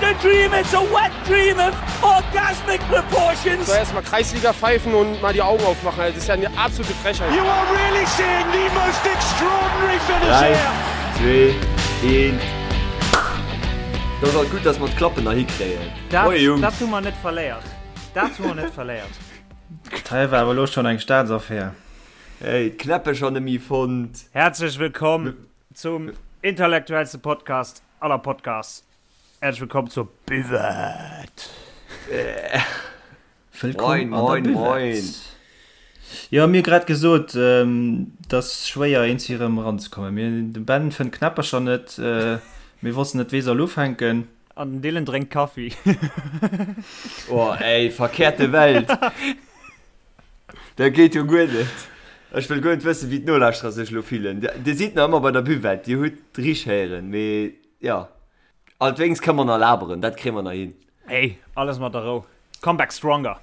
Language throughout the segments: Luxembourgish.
a dream, it's a wet dream of orgasmic proportions. Soll erstmal Kreisliga pfeifen und mal die Augen aufmachen, das ist ja eine absolute Frechheit. You are really seeing the most extraordinary finish 3, here. 2, 1. Dat ass alt gutt, dass mer d'Klappen nach hikréien. Dat, Moie Jungs. dat hu mer net verléiert. Dat hu mer net verléiert. Hei war awer elo schonn eng Staatsaffär. Hey, d'Knäppecher nemme fonnt. Häerzlech wëllkomm zum intellektuellste Podcast aller Podcasts. Häerzlech wëllkomm zur Buvette. Wëllkomm Moin, an der moin, moin. Buvette. Jo, mir hu grad gesot, et ass schwéier eens hir erëm eranzekommen. Mir, de Ben fënnt d'Knäppercher net, mir wossten net wee soll ufänken. An den Dylan drénkt Kaffi. Oh ey, verkehrte Welt. Dat geet jo guer net. Ech wëll guer net wëssen, wéi d'Nolauschterer sech elo fillen. Dir sidd nach ëmmer bei der Buvette, dir hutt richt héieren, mee jo. Alt wéinst kënne mer nach laberen, dat kréie mer nach hin. Ey, alles mat der Rou. Come back stronger.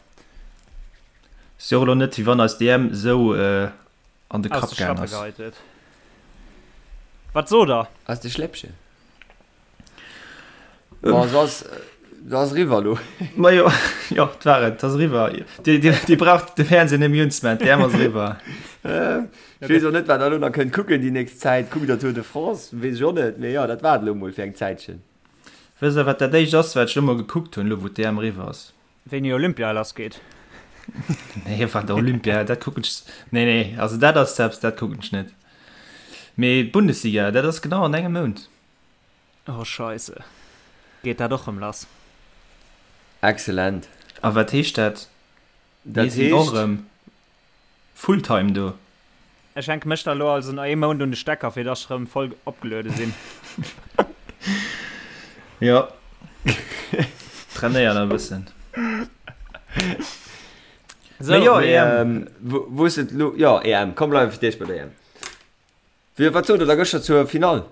Ass jo och elo net, wéi wann eis DM esou an de Aus Kapp de gaang Schlappe ass. geheit huet. Wat sot der? Aus de Schläppchen. Ma se ass, se ass eriwwer elo. Ma jo, jo, et war et, et ass eriwwer. Dir, dir, dir braucht de Fernseh net méi unzemaachen, d'EM ass eriwwer. Ech weess och net, wat der elo nach kënnt kucken déi nächst Zäit. Kuckt der Tour de France? Weess ech och net. Mee jo, dat war et elo mol fir eng Zäitchen. Wësst der, wat dat éischt ass, wat ech elo mol gekuckt hunn, elo wou d'EM eriwwer ass? Wéini Olympia lass geet? Nee, wat Olympia, dat kucken ech. Nee, nee, also dat ass eppes, dat kucken ech net. Mee d'Bundesliga, dat ass genau an engem Mount. Oh Scheisse. Geet dat och rëm lass? Excellent. A wat heescht dat? Dat Mir sinn och heescht. rëm Fulltime do. Ech hänke mech da lo also nach ee Mount un de Stecker, fir dass ech rëm voll opgeluede sinn. Jo. Trainéier nach e bëssen. Sou. Mee jo, Mee, EM. wou, wou ass et lo? Jo, EM. Komm, bleiwe fir d'éischt bei der EM. Wéi, wat sot der da gëschter zur Finall?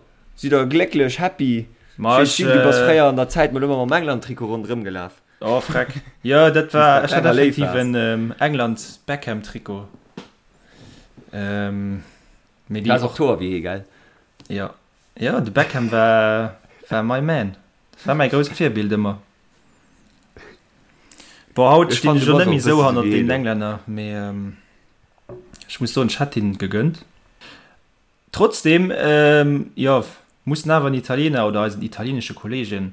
Sidd der glécklech, happy? Ma Ech ech, weess, du bass fréier an der Zäit mol ëmmer mam England-Trikot ronderëm gelaf. Oh freck. Jo, dat Wéi s war, de ech hat klenger Léif effektiv waars. en England-Beckham-Trikot. Mee Du déi has och och. d'Hoer wéi hie, gell? Jo, jo, de Beckham war, war my man. Dat war mäi grousst Virbild ëmmer. Bon, haut Ech stinn fannen, ech du och bass net och méi e esou bësse sou hannert wéi hie deenen do. Englänner, mee ech muss soen, ech hätt hinnen et gegönnt. Trotzdem, jo, mussen awer den Italiener oder eisen italienesche Kollegen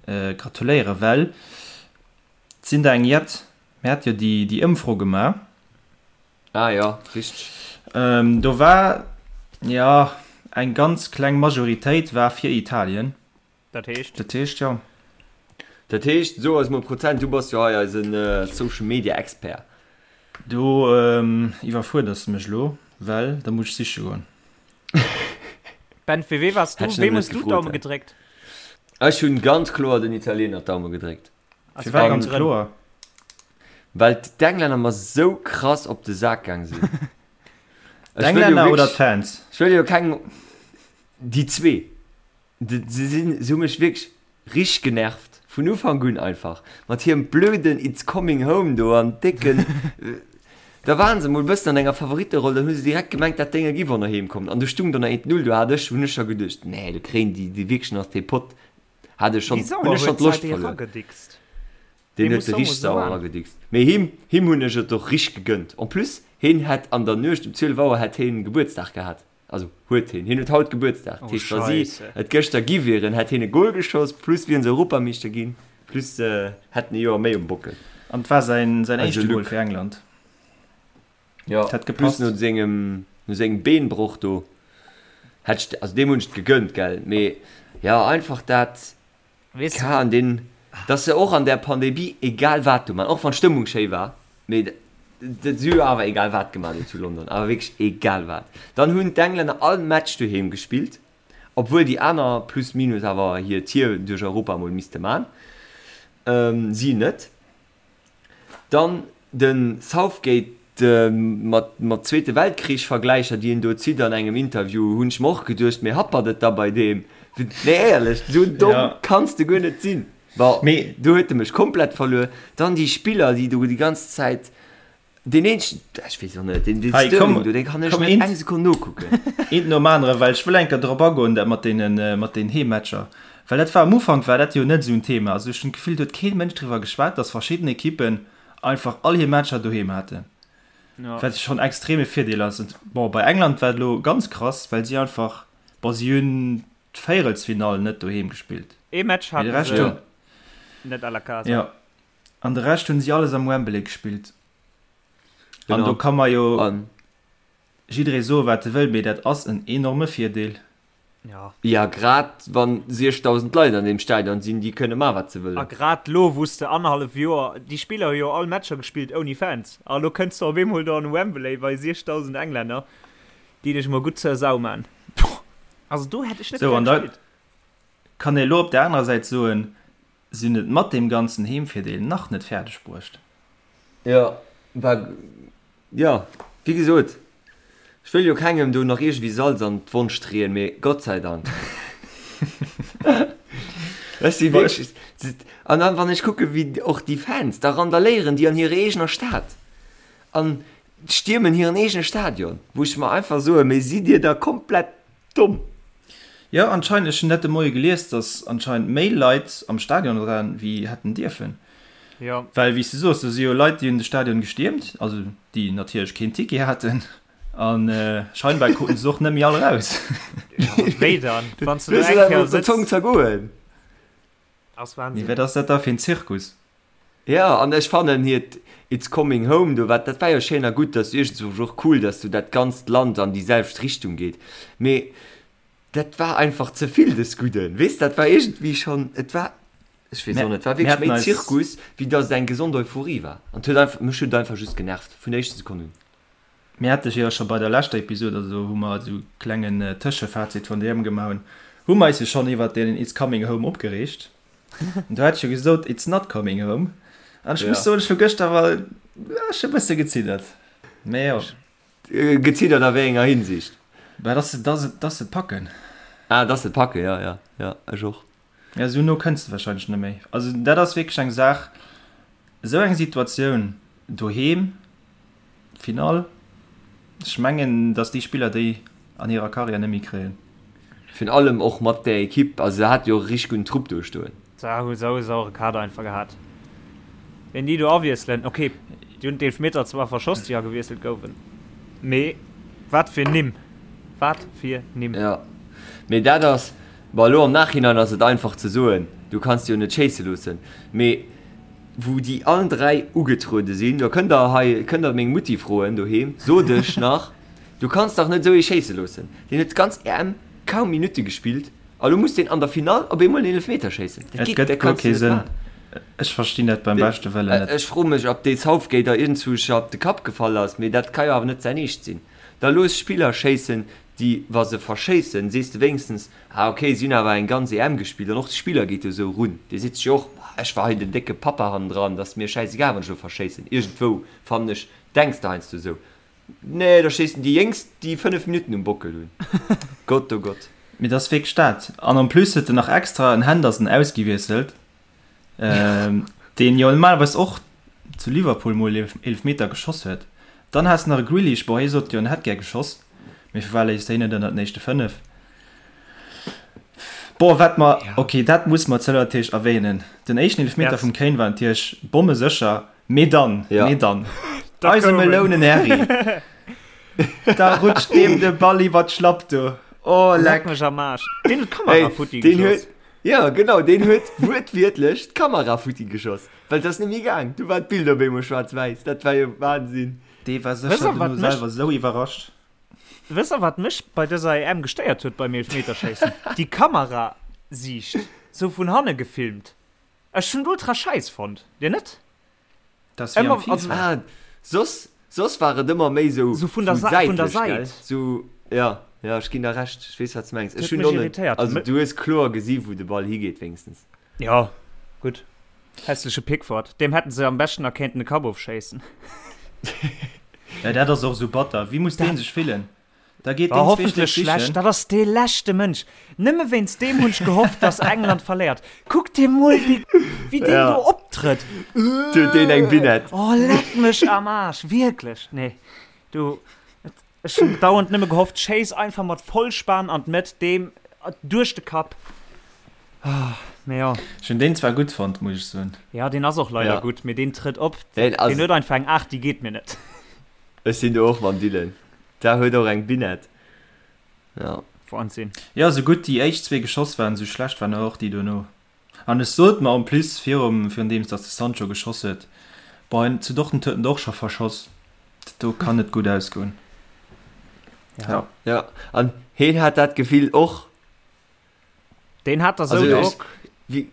gratuléieren, well et sinn der eng jett, mir hate jo déi Ëmfro gemaach. Ah jo, richteg. Do war, jo, eng ganz kleng Majoritéit war fir Italien. Dat heescht? Dat heescht, jo. Dat heescht, so eis mol Prozent, du bass jo hei eisen Social Media Expert. Do iwwerfuerders de mech elo, well da muss ech siche goen. Ben, fir wee waars du? Hätt ech Weem nëmmen hues net du gefrot, d'Daume hä? gedréckt? Ech hunn ganz kloer den Italiener d'Daume gedréckt. Aus Firwat wéi engem ganz Grënn? kloer? Well d'Englänner mer sou krass op de Sak gaang sinn. Ech wëll jo D'Englänner oder wierklech, d'Fans? ech wëll jo keng, déi zwee. Se sinn, se hu mech wierklech richteg genervt, vun Ufank un einfach, mat hirem blöden It's coming home do an décken, da waren se mol bëssen an enger Favoritteroll, dann hu se direkt gemengt, dat Dénge giff och nach heem kommen an du stung do nach 1, 0, do hat ech, hunn ech scho geduecht, nee, do kréien déi déi wierklech nach dee Pott, hat ech schonn, Wéi hunn sauer ech schonn huet d'Loscht d'Säit verluer. eragedickst. Deen Dee huet muss se somo richteg sou sauer an. eragedickst. Mee him, him hunn ech et och richteg gegönnt. En plus, heen hätt an der Nuecht um 12 Auer hätt heen Gebuertsdag gehat. Also huet heen. Heen huet haut Gebuertsdag. Dat Oh heescht, wa si Scheisse. et gëschter gi wieren, hätt heen e Gol geschoss, plus wieren se Europameeschter ginn, plus hätt en e Joer méi um Bockel. An et war säin säin Also éischte Gol Luc. fir England. Jo, Dat hätt plus gepasst. no sengem no sengem Beenbroch do hätt ech, also deem hunn ech et gegönnt, gell. Mee jo, einfach dat. Weess Ka an deen, dass se och an där Pandemie egal wat do man, och wann d'Stëmmung schéi war, mee dat si hu jo awer egal wat gemaach do zu London, awer wierklech egal wat. Dann hunn d'Englänner all Match doheem gespillt, obwuel déi aner plus minus awer hir Tier duerch Europa mol misste man, si net. Dann de Southgate mat mat Zweete Weltkrich Vergläicher déi en do zitt an engem Interview, hunn ech mer och geduecht, mee happert et da bei deem? Nee éierlech, esou domm Ja. kanns de guer net sinn. Bon, Mee. do huet e mech komplett verluer. Dann déi Spiller déi do déi ganz Zäit, deen eenzegen, ech weess och net, deen deen Hei, Sterling komm, do, dee kann ech komm net eent, eng Sekonn nokucken. eent nom anere, well ech wëll eng Kéier drop agoen, dat mat deenen, mat deenen Heemmatcher. Well dat war am Ufank war dat jo net esou en Thema. Also ech hunn d'Gefill, do huet kee Mënsch driwwer geschwat, datt verschidden Ekippen einfach all hir Matcher doheem haten. Ja. Wat schonn extreme Virdeel ass. Und bon, bei England war et elo ganz krass, well si einfach, bon, si hunn d'Véierelsfinall net doheem gespillt. Ee Match Mee de haten Rescht se hunn, net à la casa. ja, an de Rescht hunn si alles am Wembley gespillt. An do Genau. ka mer jo An jidderee soe wat e wëll, mee dat ass en enorme Virdeel. Ja. Ja, grad wann 6.000 Leit an deem Stadion sinn, déi kënne man wat se A wëllen. grad lo wou s de annerhallef Joer, déi Spiller hu jo all Matcher gespillt ouni Fans, a lo kënns de op eemol do an Wembley bei 6.000 Englänner, déi dech mol gutt zur Sau man. Also do hätt ech net Sou, gär an da gespillt. kann ee lo op der anerer Säit soen, si hunn et mat deem ganzen Heemvirdeel nach net fäerdeg bruecht. Jo, war Jo, wéi gesot, ech wëll jo kengem do nach iergendwéi Salz an d'Wonn streeën, mee Gott sei Dank. Ech si wierklech, an dann, wann ech kucke wéi och déi Fans da randaléieren déi an hirer eegener Stad an stiermen hiren eegene Stadion, wou ech mer einfach soen, mee sidd Dir da komplett domm? Jo, anscheinend, ech hunn dat de Moie gelies, datt anscheinend méi Leit am Stadion waren, wéi hätten dierfen. Jo. Well, wéi s de soos, do si jo Leit, déi hunn de Stadion gestiermt, also déi natierlech keen Ticket haten, a scheinbar kruten se och net méi all eraus. Jo, wéi dann, wann s de do Looss eng et Kéier einfach op der sëtz? Zong zergoen. Ass Mee Wahnsinn. wat ass dat da fir en Zirkus? Jo, an ech fannen hiert It's coming home do, wat, dat war jo schéin a gutt, dat ass iergendzwousch och cool, dass do dat ganzt Land an déi selwecht Richtung geet, mee dat war einfach ze vill des Gudden, weess, dat war iergendwéi schonn, et war, ech weess och net, et war Mir wierklech haten méi eis. Zirkus, wéi dass et eng gesond Euphorie war an et huet einfach, mech huet et einfach just genervt vun der éischter Sekonn un. Mir hate jo scho bei der leschter Episod, also wou mer esou klengen Tëschefazit vun der EM gemaach hunn, hu mer eis jo schonn iwwert deen It's coming home opgereegt. An do hat ech jo gesot, It's not coming home. An ech muss Ja. soen, ech hu gëschter awer, ech hu e bësse geziddert. Mee jo. Geziddert a wéi enger Hinsicht? Bah, dass se, dass se, dass se et packen. Ah, dass se et packen, ja, ja, ja, ech och. Ja, esou no kënns de wahrscheinlech net méi. Also dat ass wierklech eng Saach, esou eng Situatioun doheem, Finall, ech mengen, datt déi Spiller déi an hirer Karriär net méi kréien. Virun allem och mat där Ekipp, also se hat jo och e richteg gudden Trupp do stoen. Se hu sou e sauere Kader einfach gehat. Ween déi do awiesselen, ok, déi hunn d'Eelfmeter zwar verschoss, déi agewiesselt gouwen, mee wat fir Nimm, wat fir Nimm! Jo, mee dat ass, bon elo am Nachhinein ass et einfach ze soen, du kanns déi jo net schéisse loossen, mee wou déi allen 3 ugetruede sinn, do kënnt der hei, kënnt der meng Mutti froen doheem, sot ech nach, du kanns dach net esou ee schéisse loossen, deen huet d'ganz EM kaum Minutte gespillt a lo muss deen an der Finall op eemol en Eelefmeter schéissen, dat Et geet, gëtt dat guer kanns du kee net Sënn. maachen. Ech verstinn dat beim beschte Wëllen net. Ech froe mech, ob dee Southgate da iergendzwousch op de Kapp gefall ass, mee dat ka jo awer net säin Eescht sinn. Da looss Spiller schéissen, déi, wa se verschéissen, sees de wéinstens, ah ok, si hunn awer eng ganz EM gespillt. An och de Spiller geet jo esou erun, dee seet sech jo och, bah, ech war hei den décke Pappa hannendran, et ass mir schäisegal, wann ech elo verschéissen. Iergendwou, fannen ech, denks de heiansdo esou. Nee, da schéissen déi Jéngst, déi 5 Minutten um Bockel hunn. Gott, oh Gott. Mee dat ass wierklech dat. An en plus huet en nach extra en Henderson ausgewiesselt, deen jo normalerweis och zu Liverpool mol Eelefmeter geschoss huet. Dann has de nach e Grealish, bon hie sot jo en hätt gär geschoss, mee firwat léisst de hien net ënnert den éischte 5? Bon wat mer, ok dat muss mer zëller natierlech erwähnen, den éischten Eelefmeter vum Kane war natierlech bommesécher, mee dann, mee dann, eise Melounen Harry, da rutscht deem de Ball iwwer d'Schlapp do, oh leck mech am Aarsch, deen huet d'Kamera futti geschoss. Jo genau, deen huet wuertwiertlech d'Kamera futti geschoss, well et ass net méi gaang. Du war d'Bild op eemol schwaarz-wäiss, dat war jo Wahnsinn. Dee war sécher dono selwer esou iwwerrascht. Wësst der wat mech bei dëser EM gestéiert huet beim Eelfmeterschéissen? Déi Kamerasiicht, sou vun hanne gefilmt. Ech hunn et ultra schäiss fonnt, dir net? Dat ass wéi am FIFA. Ah, soss, soss war et ëmmer méi sou Sou vun der Sa vun der säitlech, gell? Säit. Sou, ja, ja, ech ginn der Recht, ech weess wat s de mengs. Dat Ech huet hunn mech och net, irritéiert. also du hues kloer gesi wou de Ball higeet wéinstens. Jo, gutt. Hässleche Pickford. Deem hätten se am beschten nach kéinten de Kapp ofschéissen. Ja, dat ass och sou batter. Wéi muss dee sech fillen? Da geet War deen hoffentlech zweeschlech schlecht. sichen. Dat ass dee leschte Mënsch. Nëmme wéinst deem hunn ech gehofft, dass England verléiert. Kuck dir mol dee, wéi deen Ja. do optrëtt. Du huet deen eng Binette. Oh, leck mech am Aarsch. Wierklech. Nee, du, ech hunn dauernd nëmme gehofft, schéiss einfach mat Vollspan an d'Mëtt, deem duerch de Kapp. Mee jo. Ech hunn deen zwar gutt fonnt, muss ech soen. Ja, deen ass och leider Ja. gutt, mee deen trëtt op. Deen ass. Deen huet einfach eng Aart, déi geet mir net. Ech sinn do och mam Dylan. Da huet och eng Binette. Ja. Wahnsinn. Jo, sou gutt déi éischt zwee geschoss waren, sou schlecht waren och déi dono. An ech sot mer en plus virum, virun deems datt de Sancho geschoss huet, boah, zu Dortmund huet en der och scho verschoss, dat do kann net gutt ausgoen. Ja. Ja, an heen hat dat Gefill och. Deen hat da sou Drock. Wéi,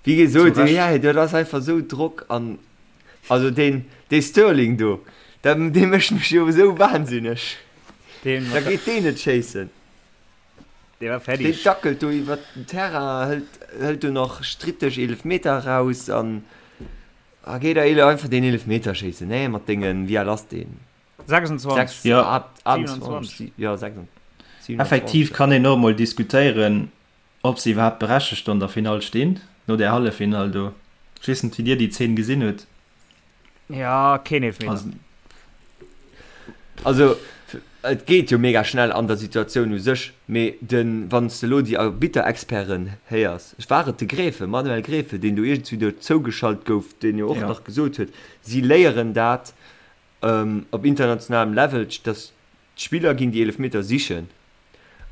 wéi gesot, ja, dat ass einfach sou Drock an also deen, dee Sterling do, dat, dee mécht mech jo esou wahnsinneg. Deen, Da geet deen net schéissen. Dee war Deen fertig. dackelt do iwwert den Terrain, hëlt, hëlt do nach stritteg Eelefmeter eraus an a geet da einfach deen Eelefmeter schéissen, nee, mat dengen, wéi al ass deen? 26. 6, Ja. 28, ja, 26. Effektiv kann een och emol diskutéieren, ob se iwwerhaapt berechtegt an der Finall stinn, no där Halleffinall do. Ech weess net, wéi Dir déi Zeen gesinn hutt. Ja, keen Eelefmeter. Also, Also, et geet jo mega schnell an der Situatioun u sech, mee den, wann s de elo déi Arbitter-Experten héiers, war et de Gräfe, Manuel Gräfe, deen do iergendwéi do zougeschalt gouf, deen jo och Ja. nach gesot huet, si léieren dat op internationalem Level, dass d'Spiller ginn déi Eelefmeter sichen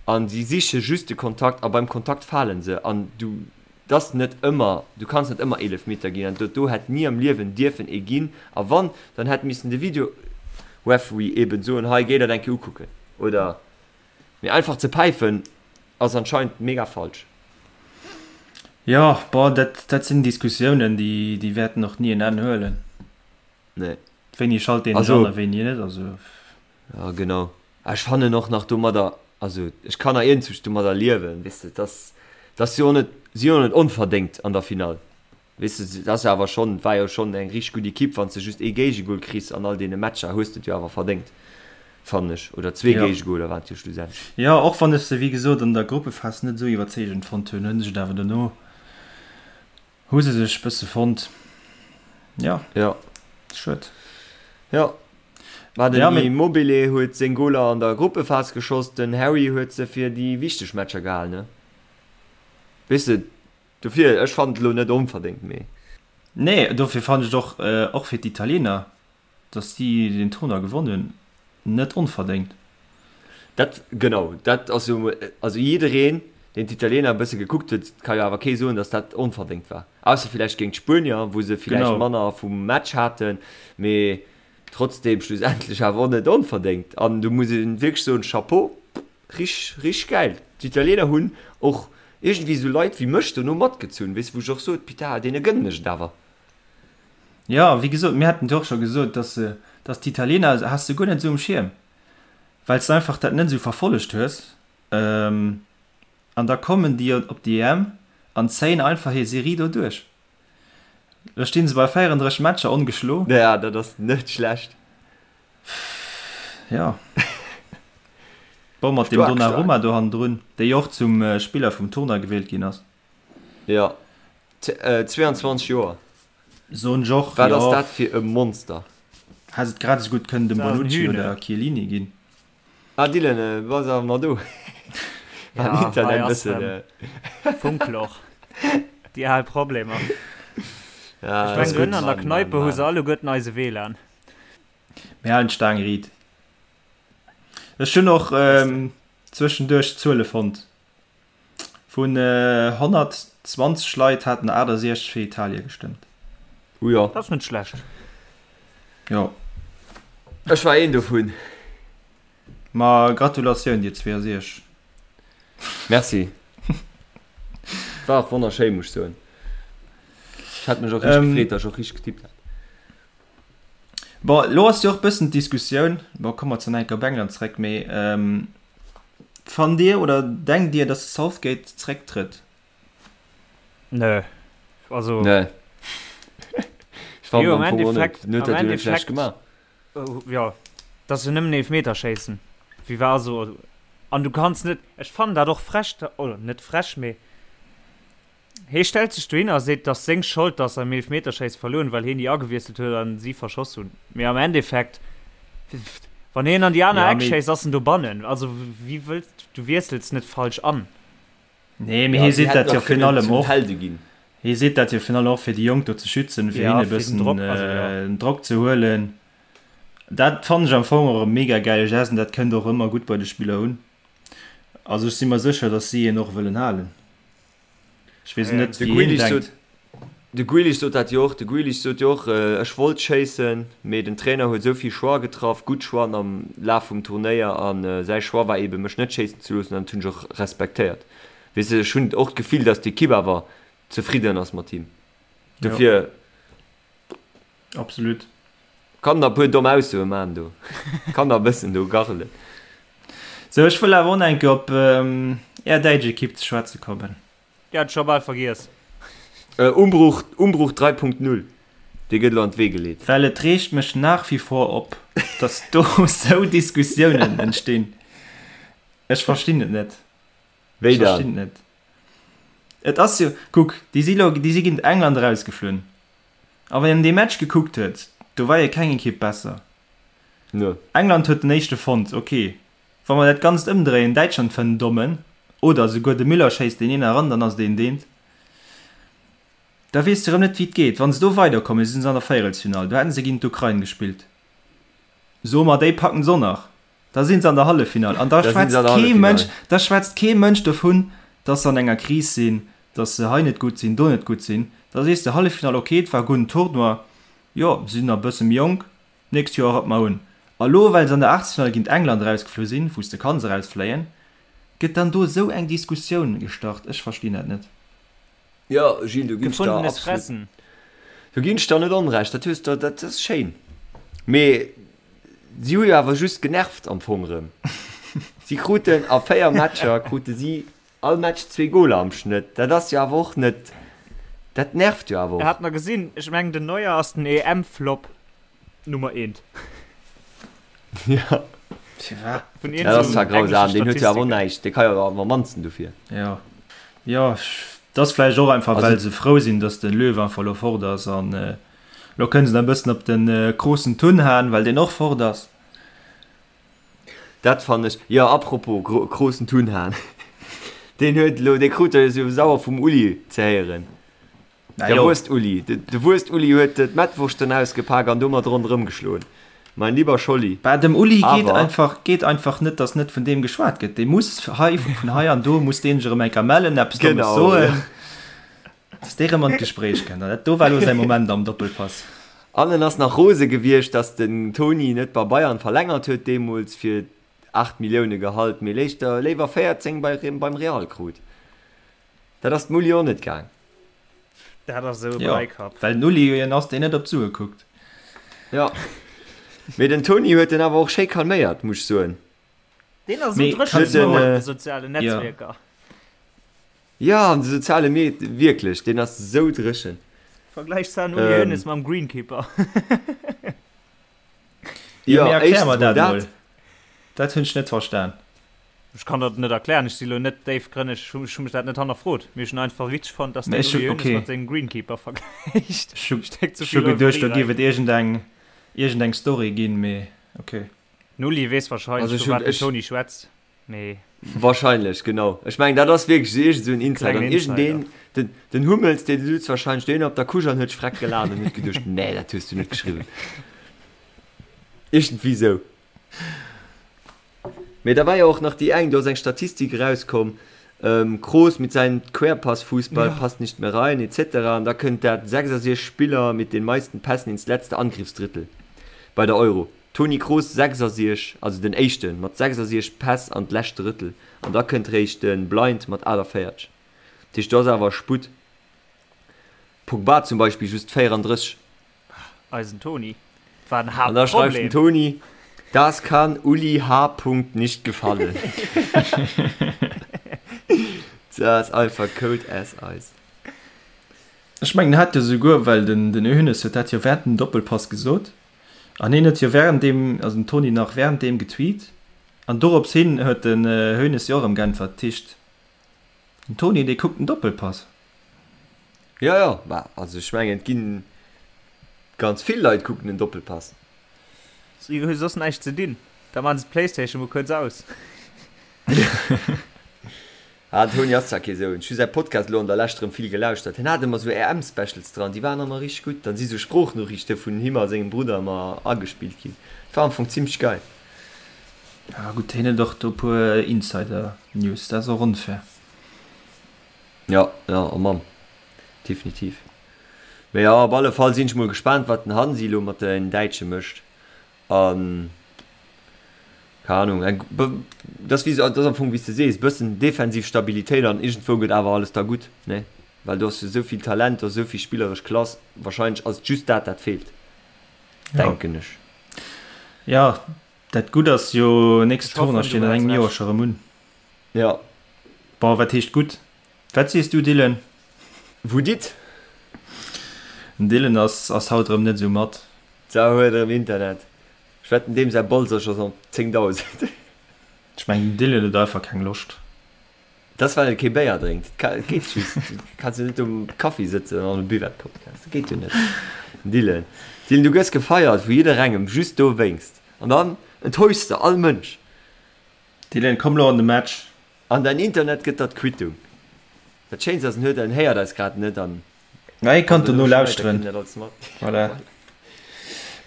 an si siche just de Kontakt a beim Kontakt fale se an du, dass net ëmmer, du kanns net ëmmer Eelefmeter ginn an dat do hätt ni am Liewen dierfen ee ginn a wann, dann hätt missen de Video-Referee eben soen, hei géi dat eng Kéier ukucken oder, mee einfach ze päifen ass anscheinend mega falsch. Jo, bon, dat, dat sinn Diskussiounen, déi, déi wäerten och ni en Enn huelen. Nee. Wéini schalt een sech an a wéini net, also. Ja genau. Ech fannen och nach domadder, also ech kann nach iergendwou domadder liewen, weess de, dass dass si och net, si jo net onverdéngt an der Finall, weess de, dat ass jo awer schonn, war jo schonn eng richteg gutt Ekipp, wann s de just ee Géigegol kriss an all deene Matcher, hues de et jo awer verdéngt, fannen ech, oder zwee Géigegoler waren et jo schlussendlech. Jo, och wann ech se wéi gesot an der Gruppephas net esou iwwerzeegend fonnt hunn, hunn ech et awer dono Hu se sech bësse fonnt. Jo. Jo. Schued. Jo. Mä den Ja, mee. Immobile huet seng Goler an der Gruppephas geschoss, den Harry huet se fir déi wichteg Matcher gehal, ne? Weess de, dofir, ech fannen et elo net onverdéngt, mee. Nee, dofir fannen ech et och, och fir d'Italiener, Dass si den Tournoi gewonn hunn, net onverdéngt. Dat, genau, dat ass jo emol, also jiddereen, deen d'Italiener e bësse gekuckt huet, ka jo awer kee soen, dass dat onverdéngt war. Ausser villäicht géint d'Spuenier, wou se villäicht manner vum Match haten, mee trotzdeem schlussendlech awer och net onverdéngt. An do muss ee wierklech soen, Chapeau, richteg, richteg gäil. D'Italiener hunn och iergendwéi esou Leit wéi mech dono matgezunn, weess, wou ech och sot, Putain, deene gënnen ech et awer. Jo, wéi gesot, mir haten et jo och scho gesot, dass se, dass d'Italiener has de guer net esou um Schierm, well s de einfach dat net esou verfollegt hues. An da kommen déi op déi EM an zéien einfach hir Serie do duerch. Lo sti se bei 34 Matcher ongeschlo. Ja, dat ass net schlecht. Jo. Bon, mat deem Donnarumma do hannendrun, dee jo och zum Spiller vum Tournoi gewielt ginn ass. Jo, 22 Joer. Soen ech och, Wat ass dat fir e Monster? Hätt et grad esou gutt kënnen dem Bonucci oder Chiellini ginn. Ah Dylan, bass awer nach do? War den Internet e bëssen. Funkloch. Déi al Problemer. Ja, Ech mengen, ënnen an der Kneipe hu se alleguerten eise WLAN. Mir halen d'Staang riit. Ech hunn och zwëschenduerch Zuele fonnt. Vun 120 Leit haten 68 fir Italie gestëmmt. Oh jo. Dat ass net schlecht. Jo. Ech war een dovun. Ma Gratulatioun dir 62. Merci. War och wonnerschéi, muss ech soen. Ech hat mech och richteg gefreet, dass ech och richteg getippt hat. Bon, elo ass jo och bëssen d'Diskussioun, bon, komme mer zwar nach eng Kéier op England zréck, mee Fannt Dir oder denkt Dir, dass de Southgate zrécktrëtt? Nö. Also. Nee. Ech fannen Jo, am am Fong och net. Endeffekt, Den huet am dat jo net schlecht Endeffekt, gemaach. jo, dass se nëmmen Eelfmeterschéissen. Wéi war also, an du kanns net, ech fannen dat och frech, oder net frech, mee Hee stellt sech dohinner a seet, et ass seng Schold, datt se am Eelefmeterschéisse verluer hunn, well heen déi agewiesselt huet an si verschoss hunn. Mee am Endeffekt, wann heen an déi aner Ja, Eck mee schéisst, ass en dobannen. Also wéi wëlls du wiessels net falsch an. Nee, mee hie seet dat jo virun allem och. Helde ginn. Hie seet dat jo virun allem och fir déi Jonk do ze schützen, fir hinne e bëssen den Drock ze huelen. Dat fannen ech am Fong och e mega gäile Geste an dat kënnt och ëmmer gutt bei de Spiller un. Also ech si mer sécher, datt si en och wëllen halen. Ech weess net, De wéi hien Grealish denkt. sot, de Grealish sot dat jo och, de Grealish sot jo och, ech wollt schéissen, mee den Trainer huet esou vill Choix getraff, gutt Choixen am Laf vum Turnéier an säi Choix war eebe mech net schéissen ze loossen an dat hunn ech och respektéiert. Weess de, ech hunn och d'Gefill, datt d'Ekipp awer zefridden ass mat him. Dofir. Absolut. Kann der puer domm Aussoe maan do. Kann der e bëssen do garrelen. Sou, ech wëll awer och nach eng Kéier op är däitsch Ekipp ze schwätze kommen. Déi hat ech scho bal vergiess. Umbruch, Umbruch 3.0, dee gëtt elo an d'Wee geleet. Well et reegt mech nach wie vor op, dass do sou Diskussiounen entstinn. Ech verstinn et net. Wéi Ech dann? verstinn et net. Et ass jo, kuck, déi si lo, déi si géint England erausgeflunn. A wann een dee Match gekuckt huet, do war jo keng Ekipp besser. Nö. England huet den éischte fonnt, ok. Wa mer dat Ganzt ëmdréien, Däitschland fënnt en Dommen, oder esouguer de Müller schéisst deen een eran, dann ass et een deent. Da weess de erëm net, wéi et geet. Wa se do weiderkommen, si se an der Véierelsfinall, do hätten se géint d'Ukrain gespillt. Soe mer, déi packen se och nach. Da sinn se an der Halleffinall an da schwätzt kee Mënsch, da schwätzt kee Mënsch dovun, dass se an enger Kris sinn, dass se hei net gutt sinn, do net gutt sinn. Da sees de, Halleffinall, ok, et war e gudden Tournoi, jo, se sinn nach e bësse méi jonk, d'nächst Joer rappe mer un. A lo, well se an der Aachtelsfinall géint England erausgeflu sinn, wou s de kanns erausfléien, gëtt dann do esou eng Diskussioun gestart. Ech verstinn dat net. Jo, Gilles, do ginn ech der Gefundenes absolut, Fressen. do ginn ech der net onrecht. Dat hues de, dat ass schéin. Mee si hu jo awer just genervt am Fong erëm. Si kruten a 4 Matcher krute si all Match zwee Goler am Schnëtt. Dat ass jo awer och net, dat nervt jo awer och. Hat mer gesinn, ech mengen den Neuer ass den EM-Flop Nummer eent. Ja. Firwat? Vun Dat ass zwar iergendesou grausam, englesche deen huet jo awer och Statistiken. näischt, dee ka jo awer am mannsten dofir. Jo, jo, et ass vläicht och einfach, Also well se frou sinn, datt de Löw einfach elo fort ass an elo kënne se nach e bëssen op de Kroos Tun haen, well deen och fort ass. Dat fannen ech, jo, apropos Kroos Tun haen, deen huet elo, dee krut jo sou sauer vum Uli ze héieren. Der Wurscht-Uli, de Wurscht-Uli huet d'Mettwurschten ausgepak an domat ronderëm geschloen. Mein lieber Scholli. Bah, dem Uli geet einfach, geet einfach net, dass net vun deem geschwat gëtt. Dee muss hei, vun hei an do muss deen sech erëm eng Kéier mellen, eppes Dommes soen, dass dee erëm an d'Gespréich kënnt. An dat do war elo säi Moment am Doppelpass. An en ass nach rose gewiescht, dass den Toni net bei Bayern verlängert huet deemools fir 8 Millioune Gehalt, mee léischter léiwer 14 bei, beim Real krut. Dat ass dem Uli och net gaang. Dat ass esou e Jo, Breikapp. well den Uli jo een ass, deen net op d'Sue kuckt. Jo, mee den Toni huet en awer och schéi calméiert, muss ech soen. Deen ass esou Mee dréchen kanns du elo mer. an de sozialen Jo. Netzwierker. Jo, an de soziale Med, wierklech, deen ass esou dréchen. Vergläich den Uli Hoeneß mam Greenkeeper. Jo, Jo, mee erklär éischtens mer mol dat dat. mol. Dat hunn ech net verstan. Ech kann dat net erklären, ech si lo net déifgrënneg, ech hu mech dat net hannerfrot, mee ech hunn einfach witzeg fonnt, dass Mee den ech hu, Uli Hoeneß okay. mat sengem Greenkeeper vergläicht. Ech hu, Stéck ze ech hu vill geduecht, Euphorie do géif rein. et iergendeng, iergendeng Story ginn, mee okay. Den Uli weess wahrscheinlech, Also ech vu hunn, wat den ech. Toni schwätzt, mee. Wahrscheinlech, genau. Ech mengen, dat ass wierklech esou iergend esou en Insider. Klengen An iergendeen, Insider. den, den Hummels, dee sutz wahrscheinlech dohinner op der Couche an huet sech freck gelaacht an huet geduecht, Nee, dat hues du net geschriwwen. Iergendwéi esou. Mee da war jo och nach déi eng, do ass eng Statistik erauskomm, Kroos mit seinem Querpassfußball passt nicht mehr rein etc. An da kënnt dat 66 Spiller mit den meisten Pässen ins letzte Angriffsdrittel bei der Euro. Toni Kroos 66, also den éischten mat 66 Päss an d'lescht Drëttel an da kënnt réischt de Blind mat 48. Dat heescht do ass awer Sputt. Pogba zum Beispill just 34. Eisen Toni war den An da schreift den Haaptproblem. Toni, Das kann Uli H. nicht gefallen. Dat ass einfach cold as ice. Ech mengen en hat jo souguer, well den den Hoeneß huet dat jo während dem Doppelpass gesot an hien huet jo während deem, also den Toni nach während deem getweet an dorops hin huet den Hoeneß jo och erëm geäntwert. Dat heescht den Toni dee kuckt den Doppelpass. Jo, jo, bah, also ech mengen et ginn ganz vill Leit kucken den Doppelpass. Si hu soss näischt ze dinn, da maachen se d'Playstation mol kuerz aus. Ah, den Toni ass zwar kee Soun, ech hu säi Podcast elo an der Lescht erëm vill gelauschtert. Hien hat ëmmer sou EM-Specials dran, déi waren ëmmer richteg gutt. Dann si sou Sproochnoriichte vun him a sengem Brudder ëmmer agespillt ginn. Dat war am Fong zimmlech geil. Ah gutt, hien huet och do e puer Insider-News, dat ass och onfair. Jo, jo, oh Mann, definitiv. Mee jo, op alle Fall sinn ech mol gespaant, wat den Hansi elo mat den Däitsche mécht. An, keng Ahnung, eng, dat ass wéi, dat ass am Fong wéi s de sees, bëssen defensiv Stabilitéit an iergendwou gëtt awer alles da gutt, ne? Well do ass jo esou vill Talent, do ass esou vill spilleresch Klass, wahrscheinlech ass et just dat, dat feelt, denken ech. Jo, dat Gutt ass jo, nächst Ech hoffen, Tournoi du steet an hues engem Joer Recht. scho rëm un. Jo. Bon, wat heescht gutt? Wat sees du, Dylan? Wou dit? Den Dylan ass ass haut erëm net esou mat. D'Sau huet erëm Internet. Ech wetten deem säi Bolz ass scho op 10.000. Ech mengen den Dylan huet einfach keng Loscht. Dat ass well e kee Béier drénkt. Dat geet just. Du kanns jo net um Kaffi sëtzen an e Buvette Podcast. Dat geet jo net. Dylan, Dylan du gëss gefeiert vu jidderengem just dowéinst. An dann enttäuschs de all Mënsch. Dylan komm lo an de Match. An däin Internet gëtt der d'Quittung. Dat Schéinst ass en huet en héiert eis grad net an. Mä hie kann dono lauschteren. Voilà.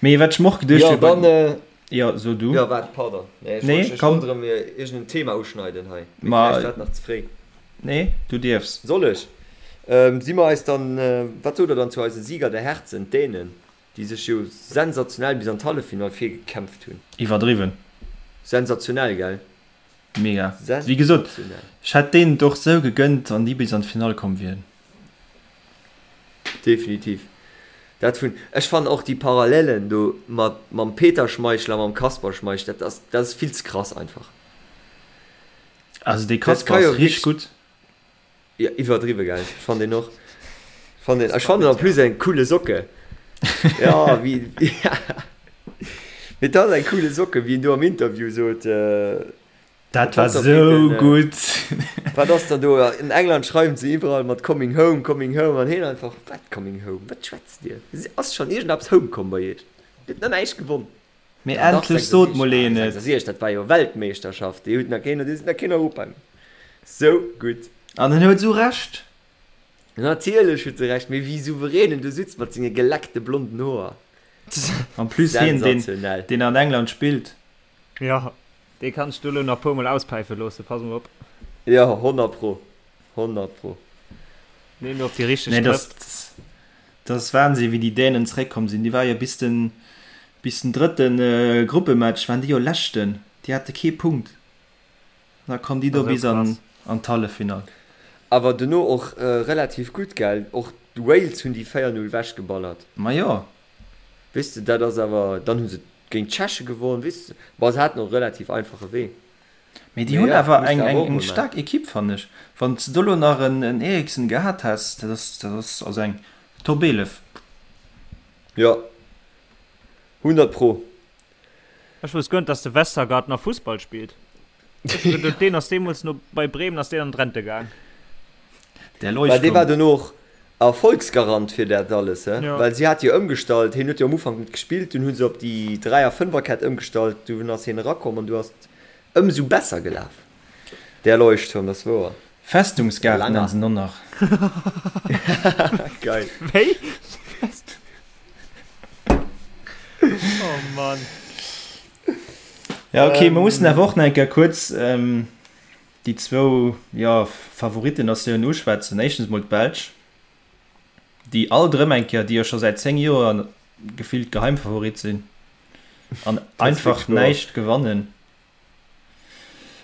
Mee wat ech mer och geduecht hunn. Jo, dann. Jo, so du. Jo, waart, pardon. Nee, ech wollt, ech wollt erëm iergend en Thema uschneiden hei. Mee vläicht war et nach ze fréi. Nee, du dierfs. Soll ech? Si mer eis dann, wat sot der dann zu eise Sieger der Herzen, d'Dänen, déi sech jo sensationell bis an d'Halleffinall virgekämpft hunn? Iwwerdriwwen. Sensationell, gell? Mega. Wéi gesot, ech hätt deenen et och sou gegënnt, wann déi bis an d'Finall komm wieren. Definitiv. Dat vun, ech fannen och déi Parallelen do mat mam Peter Schmeichel a mam Kasper Schmeichel, dat ass, dat ass vill ze krass einfach. Also dee Dat Kasper ka jo ass richteg wierklech, gutt. jo iwwerdriwwe gell, ech fannen deen och, ech fannen deen, ech fannen en plus eng coole Socke, jo wéi, mee dat ass eng coole Socke wéi en do am Interview sot. Dat war sou gutt! Wat ass dann do? In England schreiwen se iwwerall mat coming home, coming home an heen einfach, wat coming home? Wat schwätzt dir? Ass schonn iergendeppes home komm bei iech? Dir hutt nach näischt gewonn. Mee endlech sot mol een et! 66, dat war jo Weltmeeschterschaft, déi hutt nach keen, déi sinn nach keen Europa méi. Sou gutt! An en huet sou Recht! Natierlech huet se Recht, mee wéi souverän en do sutzt mat senge geleckte blonden Hoer. En plus hien, deen, deen an England spillt. Jo, dee kann ech do lo nach puer mol auspäife loossen, pass mol op. Jo, 100 pro, 100 pro. Neen, do op déi richteg Nee, Trëpp. dat, dat ass Wahnsinn, wéi déi Dänen zeréckkomm sinn. Déi ware jo bis den, bis den drëtte Gruppematch waren déi jo Leschten. Déi hate kee Punkt. An da kommen déi do Esou bis an, krass. an d'Halleffinall. Awer dono och relativ gutt, gell? Och d'Wales hunn déi 4, 0 wechgeballert. Ma jo. Weess de, dat ass awer, dann hu se géint d'Tscheche gewonn, weess de, bon, se haten och e relativ einfache Wee. Mee déi Mee hunn jo, awer muss eng de awer eng och eng mol maachen. staark Ekipp, fannen ech. Wann s de do lo nach en en Eriksen gehat häss, dat ass dat ass also eng Top 11. Jo, 100 pro. Ech wousst guer net, dass de Vestergaard nach Fussball spillt. Ech hu geduet, deen ass deemools no bei Bremen ass deen an d'Rente gaang. Der Well dee war Leuchtturm. dono och Erfolgsgarant fir dat alles, he? Ja. Well si hat jo ëmgestallt, hien huet jo am Ufank net gespillt, dunn hu se op déi Dräier Fënferkett ëmgestallt, dunn ass hien erakomm an du ass et ëmsou besser gelaf. Der Leuchtturm, dat ass wouer. Festungsgaart nennen se en och nach. Geil. Wéi? Oh Mann. Ja, okay, mer mussen awer och nach eng Kéier kuerz déi zwou, jo, Favoritten-Natiounen uschwätzen. Éischtens mol d'Belsch, déi alt erëm eng Kéier, déi jo scho säit 10 Joer gefillt Geheimfavorit sinn an einfach näischt gewannen.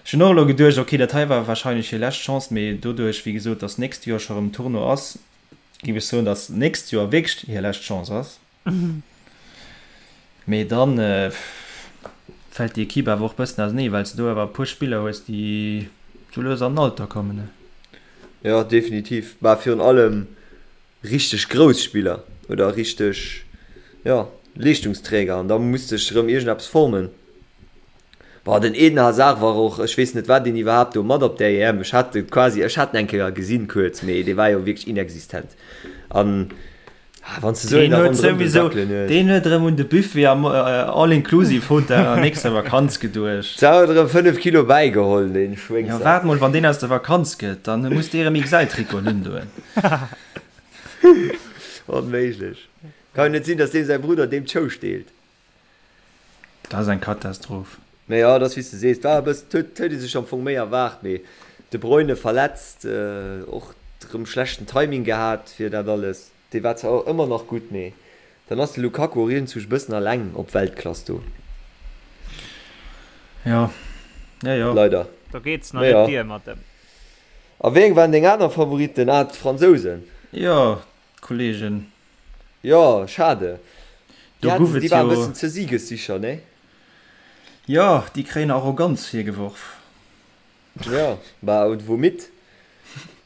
Ech hunn och elo geduecht, okay, dat hei war warscheinlech hir lescht Chance, mee doduerch, wéi gesot, datt d'nächst Joer scho erëm Tournoi ass, géif ech soen, datt d'nächst Joer wierklech hir lescht Chance ass. Mee dann fält déi Equipe awer och bëssen ausenee, well s de do awer e puer Spiller hues, déi sou lues an den Alter kommen. Jo, definitiv. Mä virun allem richteg grouss Spiller oder richteg, jo, Leeschtungsträger an da muss sech erëm iergendeppes formen. Boah, den Eden Hazard war och, ech weess net wat deen iwwerhaapt do mat op der EM, ech hat e quasi, ech hat en eng Kéier gesinn kuerz, mee dee war jo wierklech inexistent an. Ah, wann du sou een Deen huet souwisou, deen huet erëm un de Buffet am All-Inclusive Hotel an der nächster Vakanz geduecht. Sa huet erëm 5 Kilo bäigeholl, deen Schwéngsack. Jo, waart mol, wann deen aus der Vakanz gëtt, dann muss dee erëm XL-Trikoten undoen. Onméiglech. Kann jo net sinn, dass deem säi Brudder deem d'Show steelt. Dat ass eng Katastroph. Mee jo, et ass wéi s de sees, war e bëssen, huet huet ee sech am Fong méi erwaart, mee De Bruyne verletzt, och rëm schlechten Timing gehat fir dat alles. Dee war zwar och ëmmer nach gutt, mee dann ass de Lukaku och iergendwou e bëssen alleng op Weltklass do. Jo, jo, jo. Leider. Do geet nach net dier mat em. A wéi eng waren deng aner Favoritten? Ah, d'Fransousen. Jo, d'Kollegen. Jo, schade. Do Déi guff haten, et déi waren e jo. bëssen ze siegessicher, nee? Jo, déi kréien Arroganz virgeworf. Jo, bah, und womit?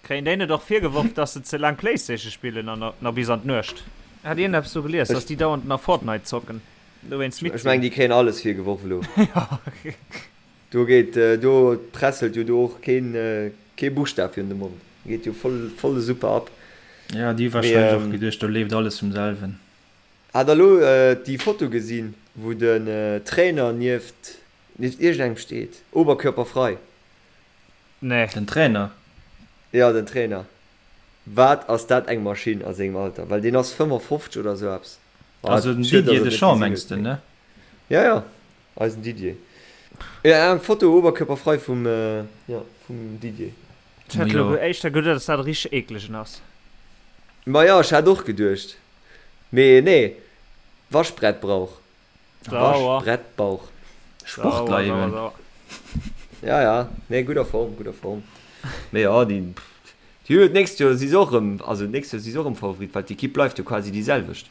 Kréien déi net och virgeworf, dass se ze laang Playstation spillen an nach bis an d'Nuecht? Hat iergendeppes do gelies, dass déi dauernd nach Fortnite zocken, dowéinst midd Ech mengen, sinn? déi kréien alles virgeworf elo. Jo. Do geet, do presselt jo do och keen, kee Buschtaf virun de Mond. Geet jo voll, voll super ab. Jo, déi hu Mee, warscheinlech och geduecht, do leeft alles vum selwen. Hat der elo déi Foto gesinn, wou den Trainer nieft, nieft iergendengem steet, oberkörperfrei? Nee. Den Trainer? Jo, den Trainer. Wat ass dat eng Maschinn a sengem Alter, well deen ass 55 oder esou eppes. Also den Didier Deschamps mengs de, ne? Jo, jo. Eisen Didier. Jo eng Foto oberkörperfrei vum jo vum Didier. Ech hätt elo éischter geduet dass dat e richteg eeklegen ass. Ma jo ech hat och geduecht, mee nee Waschbrettbrauch. Waschbrettbauch. Sportler eben. Ja ja nee gudder Form gudder Form. Mee jo déi déi hu jo d'nächst Joer si se och erëm also d'nächst Joer si se och erëm Favorit well d'Equipe bleift jo quasi déi selwecht.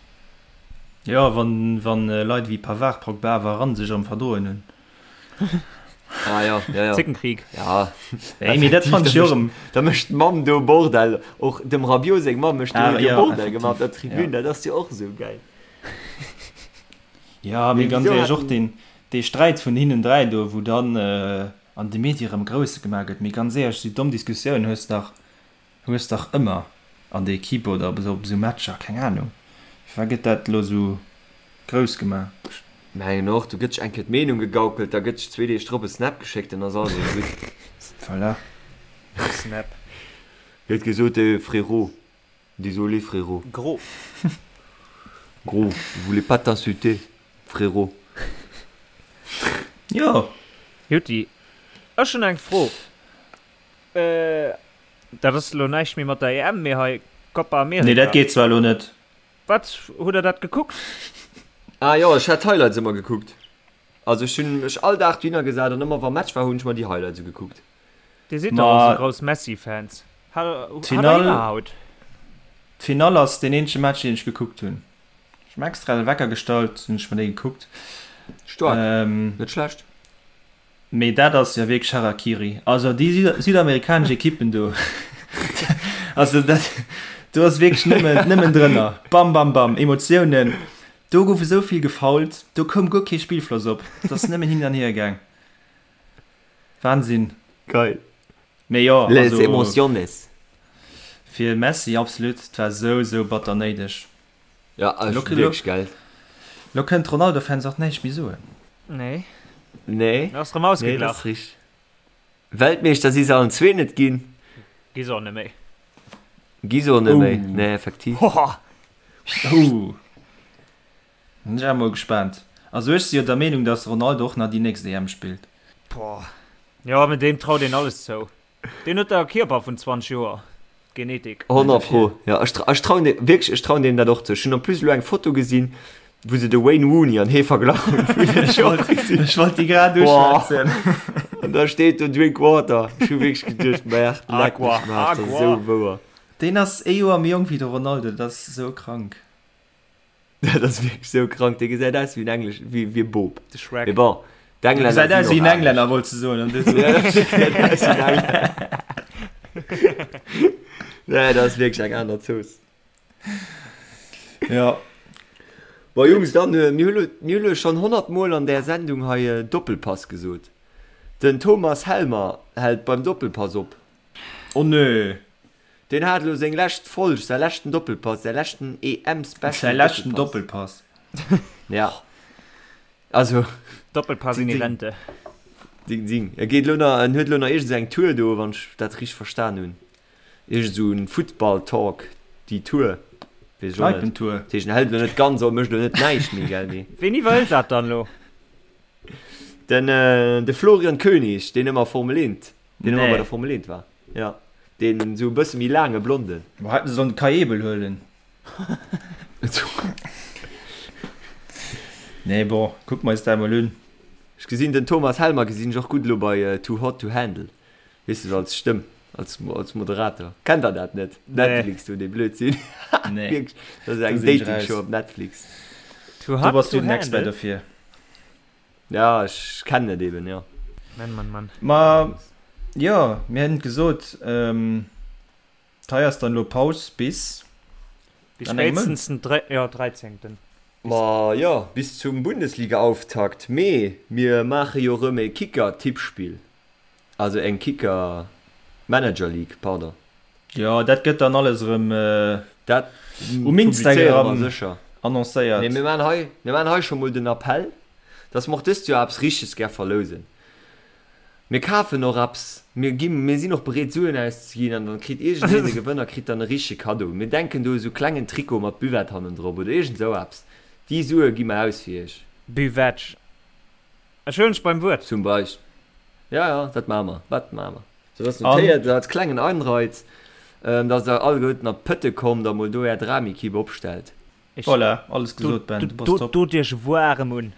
Jo, wann wann Leit ewéi Pavard, Pogba, Varane sech erëm verdroen hunn. Ah jo, jo, jo. Zickenkrieg. Ja. Ey, mee dat fand ech jo erëm. Da mécht d'Mamm do Bordell. Och dem Rabiot seng Mamm mécht do Ah, jo ja, Bordell gemaach op der effektiv, Tribün. ja. Dat ass jo och esou gäil. Ja, mee Mee ganz wieso éierlech, och haten. deen dee Sträit vun hinnen 3 do, wou dann an de Medie erëm grouss gemaach gëtt. Mee ganz éierlech, esou domm Diskussiounen hues dach Hues dach ëmmer an der Equipe oder op esou Matcher, keng Ahnung, firwat gëtt dat elo esou grouss gemaach? Ech mengen och, do gëtt sech eng Kéier d'Meenung gegaukelt, da gëtt sech zwee Deeg drop e Snap geschéckt, dann ass alles erëm gutt. Voilà. Snap. Gëtt gesot, eh frérot, désolé frérot. Gros. Gros, je voulais pas t'insulter, frérot. Jo. Jutti, ech hunn eng Fro. Dat ass elo näischt méi mat der EM, mee hei Copa America. Nee, dat geet zwar elo net. Wat, hutt der dat gekuckt? Ah jo, ech hat d'Highlights ëmmer gekuckt. Also ech hunn mech all Dag dohinner gesat an ëmmer wa Match war hunn ech mer déi Highlights ugekuckt. Dir sidd dach och esou grouss Messi-Fans. Hat der iwwerhaut? D'Finall ass deen eenzege Match deen ech gekuckt hunn. Ech hunn extra de Wecker gestallt, hunn ech mer dee gekuckt. Staark, net schlecht. Mee dat ass jo wierklech Harakiri. Also déi südamerikanesch Ekippen do, also dat do ass wierklech nëmmen, nëmmen drënner. Bam, bam, bam, Emotiounen. Do gouf esou vill gefoult, do koum guer kee Spillfloss op. Et ass nëmmen hin an hier gaang. Wahnsinn. Geil. Mee jo, Les also emociones. fir Messi absolut, et war esou, esou batter néideg. Ja, ass Lo, lo, wierklech geil. lo kënnen d'Ronaldo-Fans och näischt méi soen. Nee. Nee. Ass rëm Nee, dat ass ausgeglach. richteg. Weltmeeschter si se allen zwee net ginn. Gi se och net méi. Gi se och net méi. Oh. Nee, effektiv. Hoha! Oh. Bin ech awer mol gespaant. Also ech si jo der Meenung, dass Ronaldo och nach déi nächst EM spillt. Boah. Jo, mee deem traut een alles zou. Deen huet da e Kierper vun 20 Joer. Genetik. 100 pro, jo. Ech ech trauen deem wierklech, ech trauen deem dat och zou. Ech hunn en plus elo eng Foto gesinn, wou se de Wayne Rooney an hee verglach hunn. Ech wollt, ech wollt déi grad uschwätzen. An da steet do Drink water. Ech hu wierklech geduecht, Merde, leck mech am Aarsch, dat ass esou wouer. Deen ass ee Joer méi jonk wéi de Ronaldo, dat ass esou krank. Dat ass wierklech sou krank, dee gesäit aus wéi en Englesch, wéi wéi e Bop. De Shrek. Mee bon, Dee d'Englänner gesäit aus sinn wéi och en anescht. Englänner, wollts de soen, an du so. Ja, dee gesäit aus wéi en Englänner. Nee, dat ass wierklech eng aner Zooss. Ja. Bon, Jungs, dann, mir hu lo, mir hu lo schonn 100 Mol an där Sendung hei Doppelpass gesot. Den Thomas Helmer hält beim Doppelpass op. Oh nö. Deen hat elo seng lescht Folg, säi leschten Doppelpass, säi leschten EM-Special Säi leschten Doppelpass. Ja. Also. Doppelpass in die Rente. Ding, ding. E geet elo nach, en huet elo nach iergend esou eng Tour do, wann ech dat richteg verstan hunn. Iergend esou en Football-Talk, déi Tour. Weess ech och net. Kneipentour. Dat heescht, en hält elo net ganz op, mécht elo net näischt méi, gell, mee. Ween iwwerhëlt dat dann elo? Den, de Florian König, deen ëmmer Formel 1, deen ëmmer bei der Formel 1 war. Ja, deen esou e bësse méi laange Blonden. Boah, hätten se sollen de Kai Ebel huelen. Nee, bon, kucke mer eis dat emol un. Ech gesinn den Thomas Helmer gesinn ech och gutt elo bei Too Hot to Handle, weess de, sou als Stëmm, als als Moderator. Kennt der dat net? Netflix do, dee Blödsinn. Nee. Wierklech, dat ass eng Do sinn ech Dating-Show raus. op Netflix. Too Do Hot bass du to den Expert Handle? dofir. Ja, ech kennen et eben, jo. Mann, Mann, Mann. Ma jo, mir hätten gesot, hei ass dann elo Paus bis Bis an engem Mount. spéitstens den dre, jo, dräizéngten. Ma jo, bis zum Bundesligaauftakt. Mee mir maache jo rëm e Kicker-Tippspill, also eng Kicker-Manager League, pardon. Jo, dat gëtt dann alles erëm Dat um publizéiere mer Instagram sécher. annoncéiert. Mee mir maachen hei, mir maachen hei scho mol den Appell, dass mer och dëst Joer eppes Richteges gär verlousen. Mir kafen och eppes, mir gi, mir sinn och bereet Suen auszeginn an dann kritt iergendeen, de Gewënner kritt dann e richtege Kaddo. Mir denken do u sou klengen Trikot mat Buvette hannendrop oder iergend sou eppes. Déi Sue gi mer aus fir iech. Buvette. Ech huelen dech beim Wuert. Zum Beispill. Ja, ja, dat maache mer, dat maache mer. Sou dass notéiert als klengen Anreiz, dass der alleguerten op d'Pëtte kommt a mol do är Dramekipp opstellt. Ech Voilà, alles gesot Ben, du bass top. Dot iech waarem un.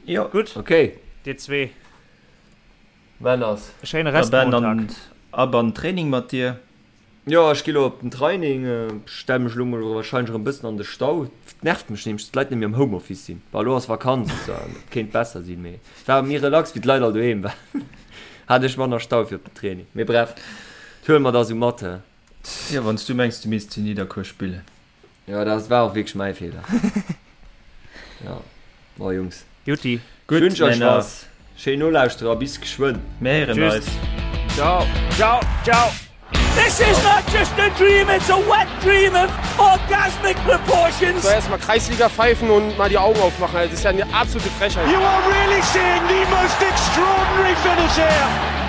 Jo. Gutt, Ok. dir zwee. Männers. E schéine Da Ben, Restmontag. an ab an den Training mat dir. Jo, ech gi lo op den Training. Stell mech elo mol wahrscheinlech erëm bëssen an de Stau. Et nervt mech nämlech, dass d'Leit net méi am Homeoffice sinn. Bon, elo ass Vakanz, et kéint besser sinn, mee et war méi relax, wéi d'Leit all doheem waren. Hat ech manner Stau fir op den Training. Mee bref, dat huele mer da sou mat, he. Jo, wann s du mengs, du misst zu Nidderkuer spillen. Jo, dat war och wierklech mäi Feeler. Jo, bon Jungs. Jutti. Gutt, Wünsch euch Männer. was. Schéin Nolauschterer, bis geschwënn. Mir héieren Tschüss. eis. Ciao. Ciao, ciao. This is not just a dream, it's a wet dream of orgasmic proportions. So erstmal Kreisliga pfeifen und mal die Augen aufmachen. Also, das ist ja eine absolute Frechheit. You are really seeing the most extraordinary finish here.